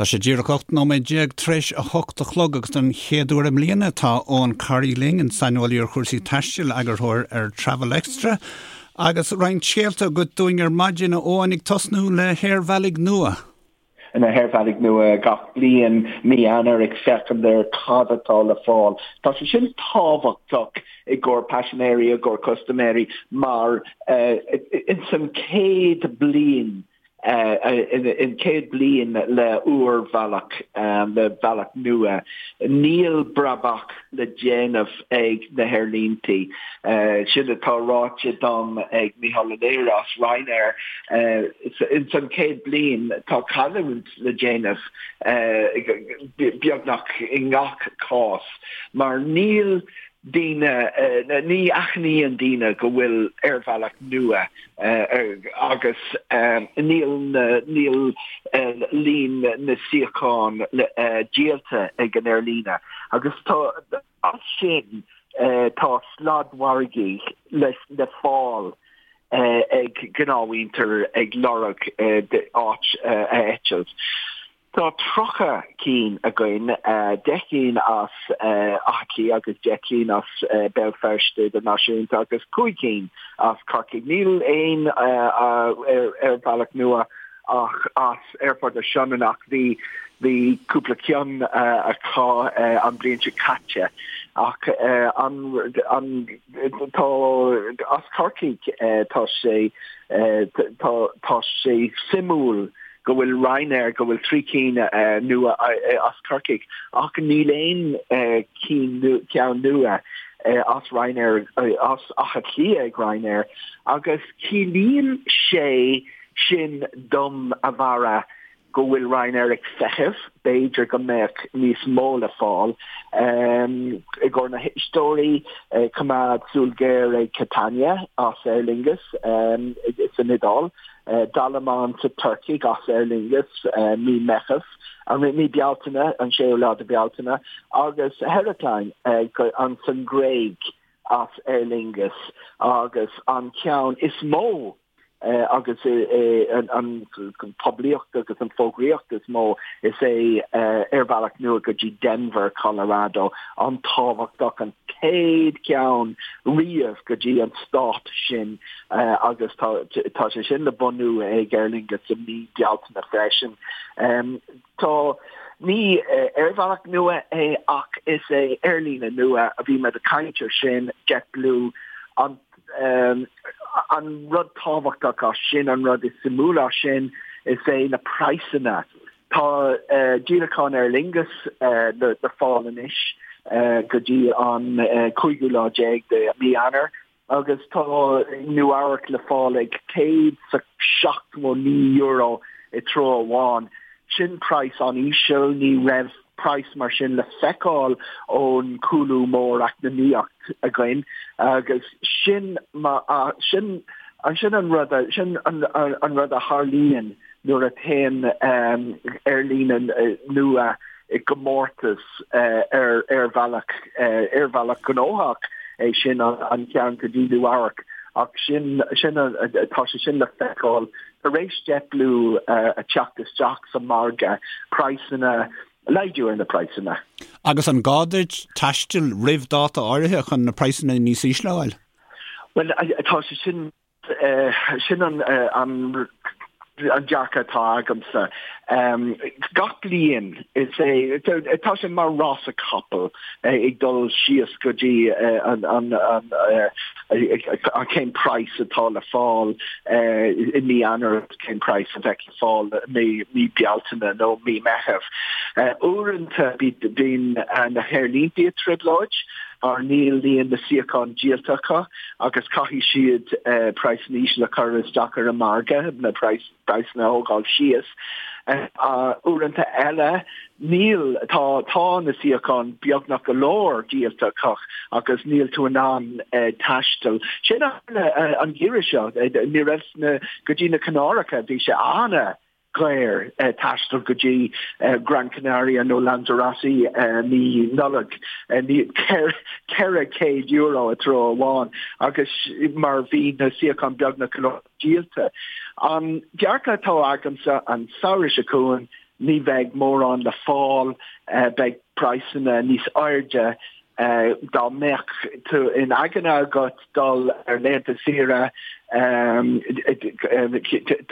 Tá sé díreach 18 nóiméad tar éis a hocht a chlog agus don chéad uair i mbliana tá Eoin Corry linn, an saineolaí ar chúrsaí taistil, eagarthóir ar Travel Extra. Agus roinnt scéalta agat dúinn ar maidin, a Eoin, ag tosnú le haerbhealaigh nua. na haerbhealaigh nua gach bliain mí Eanáir ag féachaint ar cad atá le fáil. Tá sé sin tábhachtach i gcomhair paisinéirí, i gcomhair custaiméirí mar ins an chéad bliain in chéad bliain le úrbhealach, le bealach nua, níl brabach le déanamh ag na haerlíntí. Sin atá ráite dom ag Micheál Ó Laoire as Ryanair. Ins an chéad bliain tá cailliúint le déanamh beagnach i ngach cás mar níl daoine, ní aithníonn daoine go bhfuil aerbhealach nua agus níl níl líon na suíochán díolta ag an aerlíne agus tá as sin tá sladmhargaí le le fáil ag gnáthmhuintir ag lorg áit a eitilt. Tá 30 cinn againn, 10 gcinn as Áth Cliath agus 10 gcinn as Béal Feirste Idirnáisiúnta agus 5 cinn as Corcaigh. Níl aon aerbhealach nua ach as Aerfort na Sionainne ach bhí bhí cúpla ceann acu an bhliain seo caite. Ach an an tá as Corcaigh tá sé tá tá sé suimiúil go bhfuil Ryanair, go bhfuil 3 cinn nua as Corcaigh ach níl aon ceann nua as Ryanair, as Áth Cliath ag Ryanair agus ciallaíonn sé sin dom, a Bharra, go bhfuil Ryanair ag feitheamh, b'fhéidir go mbeadh níos mó le fáil. I gcomhair na héisteoirí, coimeád súil ghéar ag Catania as Aer Lingus san Iodáil. Dalaman sa Tuircigh as Aer Lingus mí Meitheamh, mí Bealtaine, an 6ú lá de Bealtaine, agus Heraklion an san Ghréig as Aer Lingus agus an ceann is mó agus an poiblíocht agus an fógraíocht is mó is é aerbhealach nua go dtí Denver, Colorado, an-tábhachtach, an chéad cheann riamh go dtí an stát sin. agus tá sé sin le bunú ag Aer Lingus i mí Bealtaine freisin. Tá, ní aerbhealach nua é ach is é aerlíne nua a bhí muid ag caint ar sin, JetBlue, an an rud tábhachtach as sin, an rud is suimiúla as sin, is é na praghsanna. Tá díolacháin Aer Lingus le fáil anois go dtí an cúigiú lá déag de mí Eanáir. Agus tá Nua Eabhrac le fáil ag €179 i treo amháin. Sin praghas an-íseal, ní raibh praghas mar sin le feiceáil ón cúlú mór eacnamaíocht againn agus sin sin sin an rud sin an rud a tharlaíonn nuair a théann aerlíne nua i gcomórtas ar aerbhealach, aerbhealach gnóthach é sin an ceann go dtí Nua Eabhrac ach sin, sin, tá sé sin le feiceáil tar éis JetBlue a teacht isteach sa margadh, praghsanna, laghdú ar na praghsanna. Agus an gá duit taisteal roimh dáta áirithe chun na praghsanna níos ísle a fháil? Bhuel, tá sé sin. Sin an dearcadh atá agamsa. Gach bliain is é, tá sé mar rása capall ag dul síos go dtí an cén praghas atá le fáil i mí Eanáir agus cén praghas a bheidh le fáil i mí Bealtaine nó mí Meitheamh. Uaireanta bíonn na haerlínte i dtrioblóid mar níl líon na suíochán díolta acu agus caithfidh siad praghsanna íseal a chur isteach ar an margadh, na praghsanna a thógáil síos. Uaireanta eile, níl, tá, tá na suíocháin beagnach go leor díolta acu agus níl tú in ann taisteal. Sin an geimhreadh seo, ní raibh na, go dtí na Canáracha, bhí sé ana dhaor taisteal go dtí Gran Canaria nó Lanzarote mí Nollag, €400 i treo amháin agus mar bhí na suíocháin beagnach go leor díolta. An dearcadh atá agamsa an samhradh seo chugainn. ní bheidh mórán le fáil, beidh praghsanna níos airde. Dá mbeadh tú in aigne agat dul ar laethanta saoire,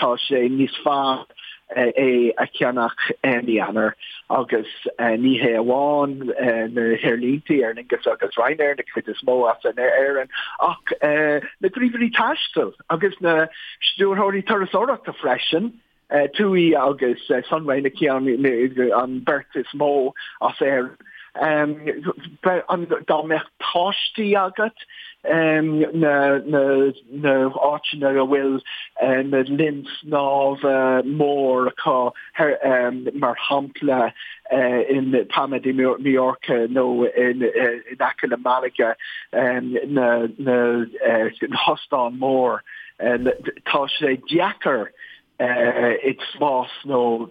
tá sé níos fearr é a cheannach i mí Eanáir agus ní hé amháin na haerlínte, Aer Lingus agus Ryanair, na cuid is mó as Éirinn, ach na gníomhairí taistil agus na stiúrthóirí turasóireachta freisin. TUI agus Sunway na ceann an beirt is mó as Éirinn. Dá mbeadh páistí agat, na háiteanna a bhfuil na linn snámha mór acu, mar shampla in Palma de Mallorca nó in aice le Malaga, na hóstáin mór, tá sé deacair spás nó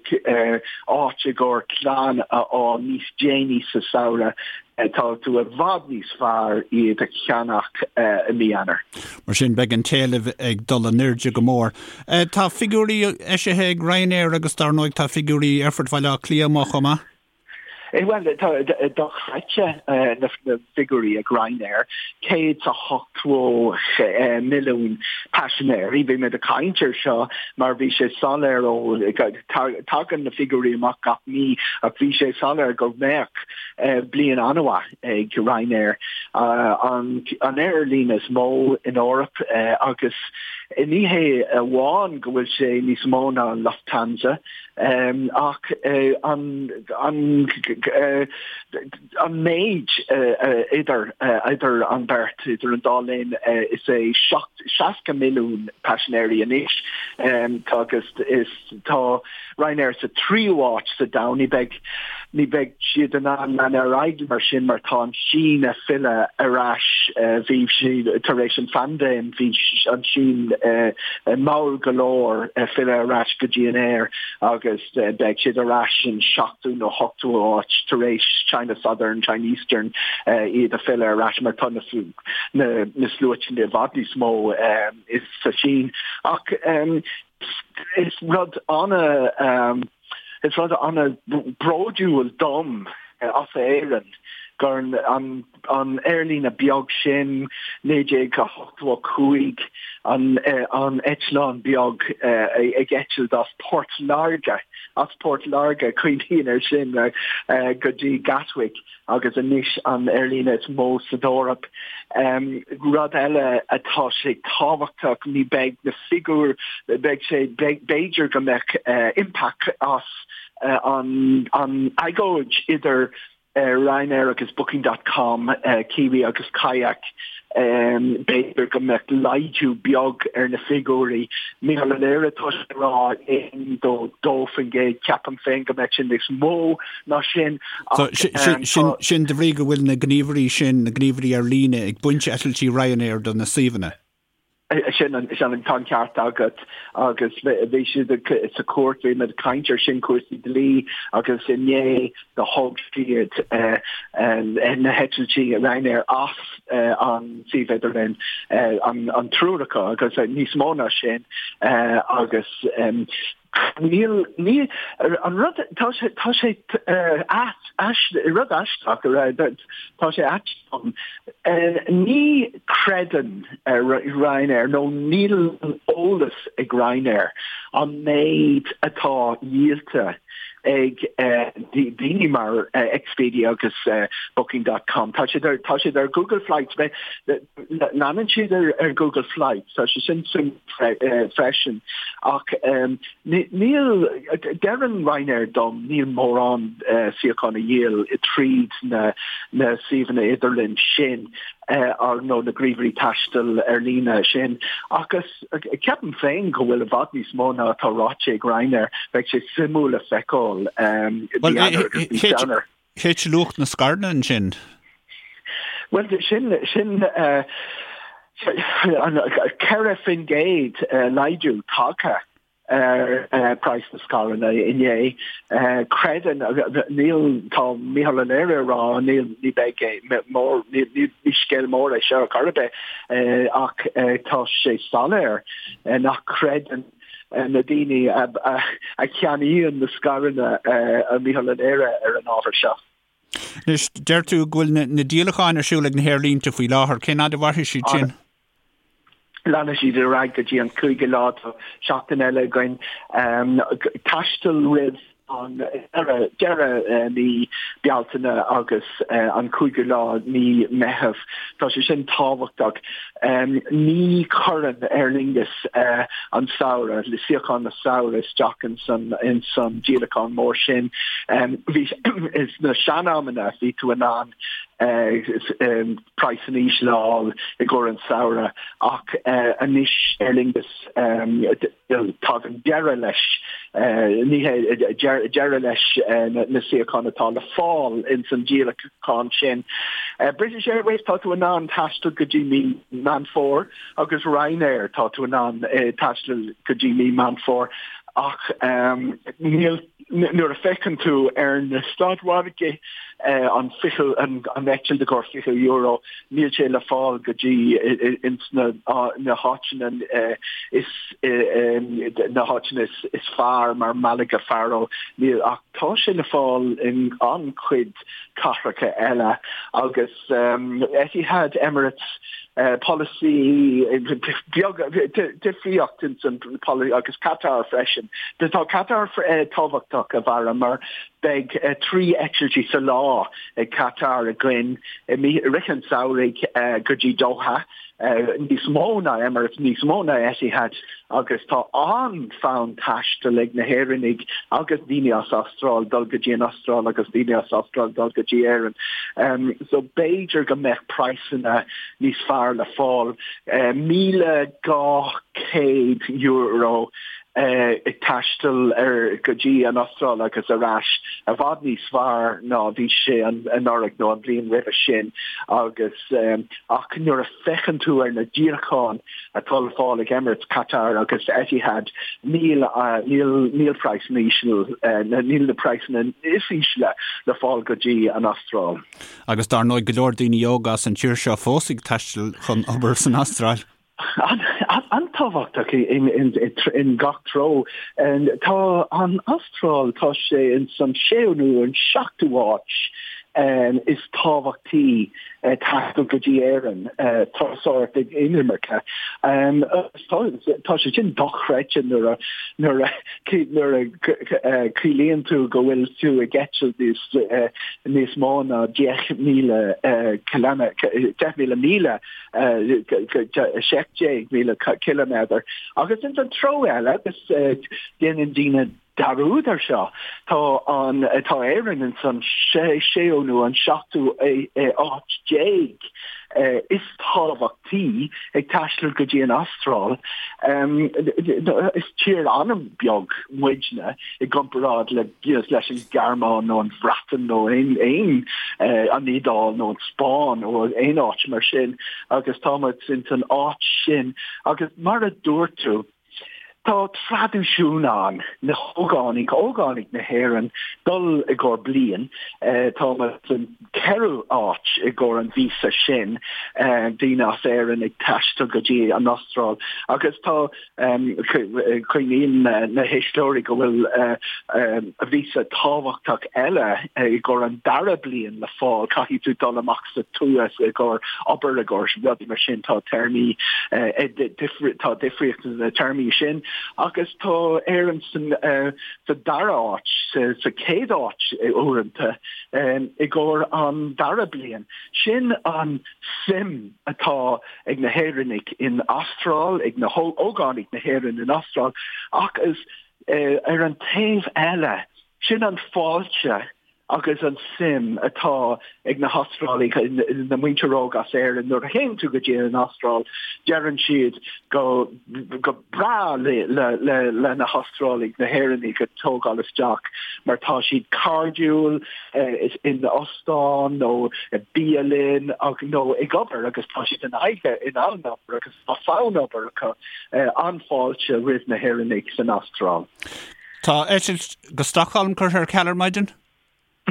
áit i gcomhair clann a fháil níos déanaí sa samhradh, tá tú i bhfad níos fearr iad a cheannach i mí Eanáir. Mar sin, beidh an t-éileamh ag dul in airde go mór. Tá figiúirí eisithe ag Ryanair agus dar ndóigh tá figiúirí Aerfort Bhaile Átha Cliath amuigh chomh maith. Bhuel, tá dochreidte na figiúirí ag Ryanair, 180 milliún paisinéirí. Bhí muid ag caint ar seo mar bhí sé soiléir ó, tagann na figiúirí amach gach mí ach bhí sé soiléir go mbeadh bliain an-mhaith ag Ryanair, an aerlíne is mó in Eoraip agus ní hé amháin go bhfuil sé níos mó ná Lufthansa, Ach an méid idir idir an beirt, idir an dá linn, is é 60 milliún paisinéirí anois agus is tá Ryanair sa tríú háit sa domhan. Ní bheidh ní bheidh siad in ann lean ar aghaidh mar sin mar tá an tSín ag filleadh ar ais. Bhí siad tar éis an phaindéim, bhí an tSín mall go leor filleadh ar ais go dtí an aer agus beidh siad ar ais in seachtú nó hochtú háit tar éis China Southern, China Eastern iad a filleadh ar ais mar tá na na sluaite i bhfad níos mó sa Sín. Ach is rud ana Is rud an-bhródúil dom as Éirinn gur an an aerlíne beag sin, 1985, an an eitleán beag ag eitilt as Port Láirge, as Port Láirge, cuimhním air sin, go dtí Gatwick. agus anois an aerlíne is mó san Eoraip. Rud eile atá sé tábhachtach, ní beidh na figiúir, beidh sé, b'fhéidir go mbeadh impact as an an agóid idir Ryanair agus Booking dot com, Kiwi agus Kayak. B'fhéidir go mbeadh laghdú beag ar na figiúirí. Mícheál Ó Laoire, tá sé ag rá 1-2%, ceapaim féin go mbeadh sé níos mó ná sin ach tá. Sin de bhrí go bhfuil na gníomhairí sin, na gníomhairí ar líne, ag baint eitiltí Ryanair de na suíomhanna. Sin an, tá an ceart agat agus bhí siad sa chúirt, bhí muid ag caint ar sin, cúrsaí dlí agus inné do thóg siad na heitiltí Ryanair as an suíomh idirlín, an triúr acu agus níos mó ná sin agus níl, ní, an rud, tá sé, tá sé rud aisteach, tá sé ait dom, ní chreideann Ryanair nó níl eolas ag Ryanair an méid atá díolta ag daoine mar Expedia agus Booking dot com. Tá siad ar, tá siad ar Google Flights, leanann siad ar Google Flights, tá sé sin suimiúil freisin ach níl, deireann Ryanair dom, níl mórán suíochán a dhíol tríd na na suíomhanna idirlín sin nó na gníomhairí taistil ar líne sin agus Ceapaim féin go bhfuil i bhfad níos mó ná atá ráite ag Ryanair. Beidh sé suimiúil le feiceáil mí Eanáir agus mí Feabhra. Thit luach na scaireanna ansin. Bhuel, sin, sin 4% laghdú tagtha ar praghas na scaireanna inné. Creideann, níl, tá Mícheál Ó Laoire ag rá, níl, ní beidh mór, ní, ní scéal mór é seo ar chor ar bith, ach tá sé soiléir nach creideann. na daoine a cheannaíonn na scaireanna, a Mhícheáil an Aoire ar an ábhar seo. Anois, deir tú go bhfuil na díolacháin ar siúl ag na haerlínte faoi láthair. Cén fhad a mhairfidh siad sin? Leanfaidh siad ar aghaidh go dtí an cúigiú lá, tá seachtain eile againn. Taisteal roimh an deireadh mí Bealtaine agus an cúigiú lá mí Meitheamh. Tá sé sin tábhachtach. Ní chuireann Aer Lingus an samhradh, suíocháin na samhradh isteach ins an díolachán mór sin. Bhí sna sean-amanna bhí tú in ann praghsanna ísle a fháil i gcomhair an samhradh ach anois Aer Lingus tagann deireadh leis ní hé deireadh leis na suíocháin atá le fáil ins an díolachán sin. British Airways tá tú in ann taisteal go dtí mí Meán Fómhair agus Ryanair tá tú in ann taisteal go dtí mí Meán Fómhair ach níl nuair a féachann tú ar na stadmhargaí an 20 an eitilt i gcomhair €20 níl sé le fáil go dtí ins na na háiteanna is na háiteanna is fearr mar Malaga Faro níl ach tá sé le fáil in an-chuid cathracha eile agus Etihad Emirates polasaí beag difríocht ins an polasaí agus Qatar freisin. Tá Qatar tábhachtach a Bharra mar beidh 3 eitiltí sa lá ag Qatar againn i rith an tsamhraidh go dtí Doha. níos mó ná Emirates, níos mó ná Etihad agus tá an-fhonn taistil ag na hÉireannaigh agus daoine as Astráil dul go dtí an Astráil agus daoine as Astráil dul go dtí Éirinn. So b'fhéidir go mbeadh praghsanna níos fearr le fáil. €1,200 ag taisteal ar go dtí an Astráil agus ar ais i bhfad níos fearr ná bhí sé anuraidh nó an bhliain roimhe sin agus ach nuair a féachann tú ar na díolacháin atá le fáil ag Emirates, Qatar agus Etihad níl níl níl praghsanna íseal níl na praghsanna is ísle le fáil go dtí an Astráil. Agus dar ndóigh go leor daoine óga as an tír seo fós ag taisteal chun obair san Astráil. An-tábhachtach in gach treo. Tá an Astráil, tá sé ins an séú nó an seachtú háit is tábhachtaí taisteal go dtí Éirinn, turasóireacht inimirce. Tá sé sin dochreidte nuair a nuair a nuair a cuimhníonn tú go bhfuil tú ag eitilt níos níos mó ná 10,000 10,000 míle 17,000 ciliméadar. Agus ins an treo eile, agus déanann daoine dearúd ar seo, tá an, tá Éirinn ins an séú nó an seachtú áit déag is tábhachtaí ag taisteal go dtí an Astráil. Is tír an-bheag muidne i gcomparáid le leis an Ghearmáin nó an Bhreatain nó aon aon an Iodáil nó an Spáinn nó aon áit mar sin agus tá muid ins an áit sin agus mar a dúirt tú tá traidisiún ann na hógánaigh ógánaigh na hÉireann dul i gcomhair bliain tá muid san ceathrú áit i gcomhair an víosa sin daoine as Éirinn ag taisteal go dtí an Astráil agus tá Cuimhníonn na héisteoirí go bhfuil víosa tábhachtach eile i gcomhair an dara bliain le fáil. Caithfidh tú dul amach sa tuath i gcomhair obair i gcomhair rudaí mar sin. Tá téarmaí, tá difríocht sna téarmaí sin agus tá Éirinn sa dara háit, sa chéad áit uaireanta i gcomhair an dara bliain. Sin an suim atá ag na hÉireannaigh in Astráil, ag na hógánaigh na hÉireann in Astráil, ach is ar an taobh eile, sin an fáilte agus an suim atá ag na hAstrálaigh, na muintir óg as Éirinn, nuair a théann tú go dtí an Astráil, deireann siad go go breá le le na hAstrálaigh, na hÉireannaigh a tógáil isteach mar tá siad cairdiúil, in óstán nó i bialann nó ag obair agus tá siad in aghaidh in ann obair agus tá fonn obair acu. An-fháilte roimh na hÉireannaigh san Astráil. Tá eitilt go Stockholm curtha ar ceal ar maidin?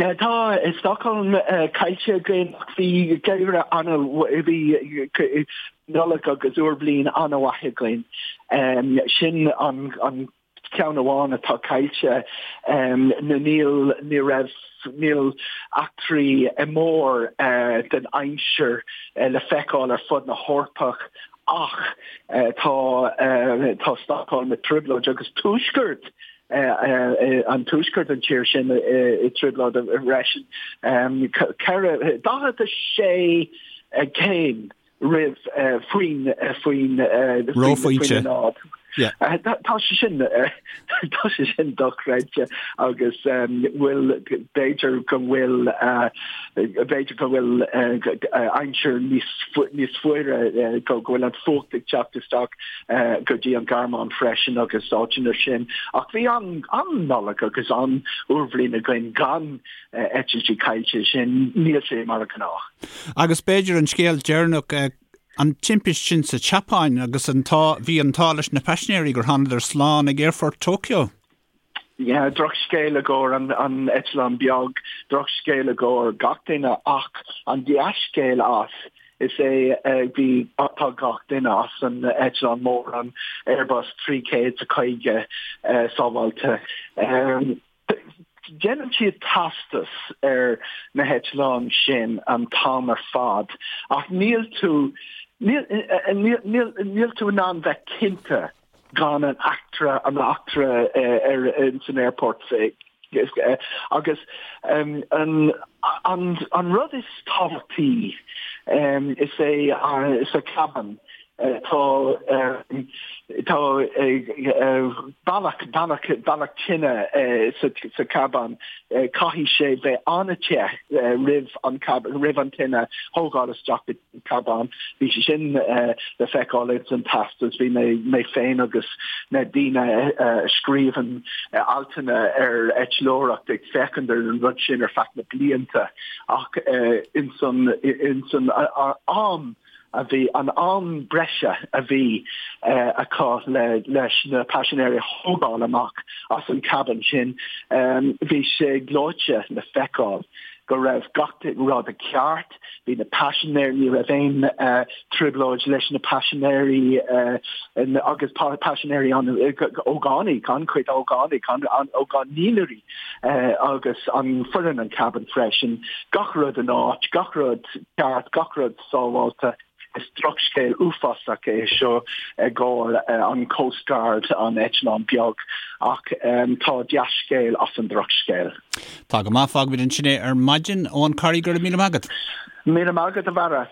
Tá Stockholm caillte againn ach bhí geimhreadh ana, bhí Nollaig agus Úr Bhliain an-mhaith againn. Sin an ceann amháin atá caillte. Níl, ní raibh, níl eachtraí mór den aimsir le feiceáil ar fud na hEorpach ach tá, tá Stockholm i dtrioblóid agus tuaisceart an tuaisceart an tír sin i dtrioblóid freisin. 4, 46 céim roimh faoin faoin Reophointe. náid. Tá sé sin tá sé sin dochreidte agus bhfuil b'fhéidir go bhfuil b'fhéidir go bhfuil aimsir níos níos fuaire go bhfuil an fuacht ag teacht isteach go dtí an Ghearmáin freisin agus áiteanna sin. Ach bhí an an Nollaig agus an Úrbhliain againn gan eitiltí caillte sin, níl sé mar a gnách. Agus b'fhéidir an scéal deireanach, an timpist sin sa tSeapáin agus an t-ádh, bhí an t-ádh leis na paisinéirí gur thánadar slán ag aerfort Tokyo. Yeah, drochscéal i gcomhair an, an eitleán beag, drochscéal i gcomhair gach duine ach an dea-scéal as is é bhí, tá gach duine as an eitleán mór, an Airbus 350 sábháilte. Déanann siad teastas ar na heitleáin sin an t-am ar fad ach níl tú, níl, níl, níl, níl tú in ann bheith cinnte gan an eachtra, an eachtra ar, ins an aerport agus an, an, an rud is tábhachtaí is é sa cabin Tá tá bealach bealach bealach tine sa cabin. Caithfidh sé bheith an-te roimh an roimh an tine thógáil isteach go cabin. Bhí sé sin le feiceáil ins an teastas. Bhí mé mé féin agus na daoine a scríobhann altanna ar eitleoireacht ag féachaint ar an rud sin ar feadh na blianta ach ins an ins an am a bhí, an am breise a bhí acu le leis na paisinéirí a thógáil amach as an cabin sin, bhí sé gleoite le feiceáil go raibh gach rud i gceart, bhí na paisinéirí, ní raibh aon trioblóid leis na paisinéirí agus paisinéirí an ógánaigh, an-chuid ógánaigh, ógánaigh agus an foireann an cabin freisin, gach rud in áit, gach rud ceart, gach rud sábháilte. Is drochscéal uafásach é seo i gcomhair an Coast Guard, an eitleán beag, ach tá dea-scéal as an drochscéal. Tá go maith, fágfaimid ansin é ar maidin. Eoin Corry, go raibh míle maith agat. Míle maith agat, a Bharra.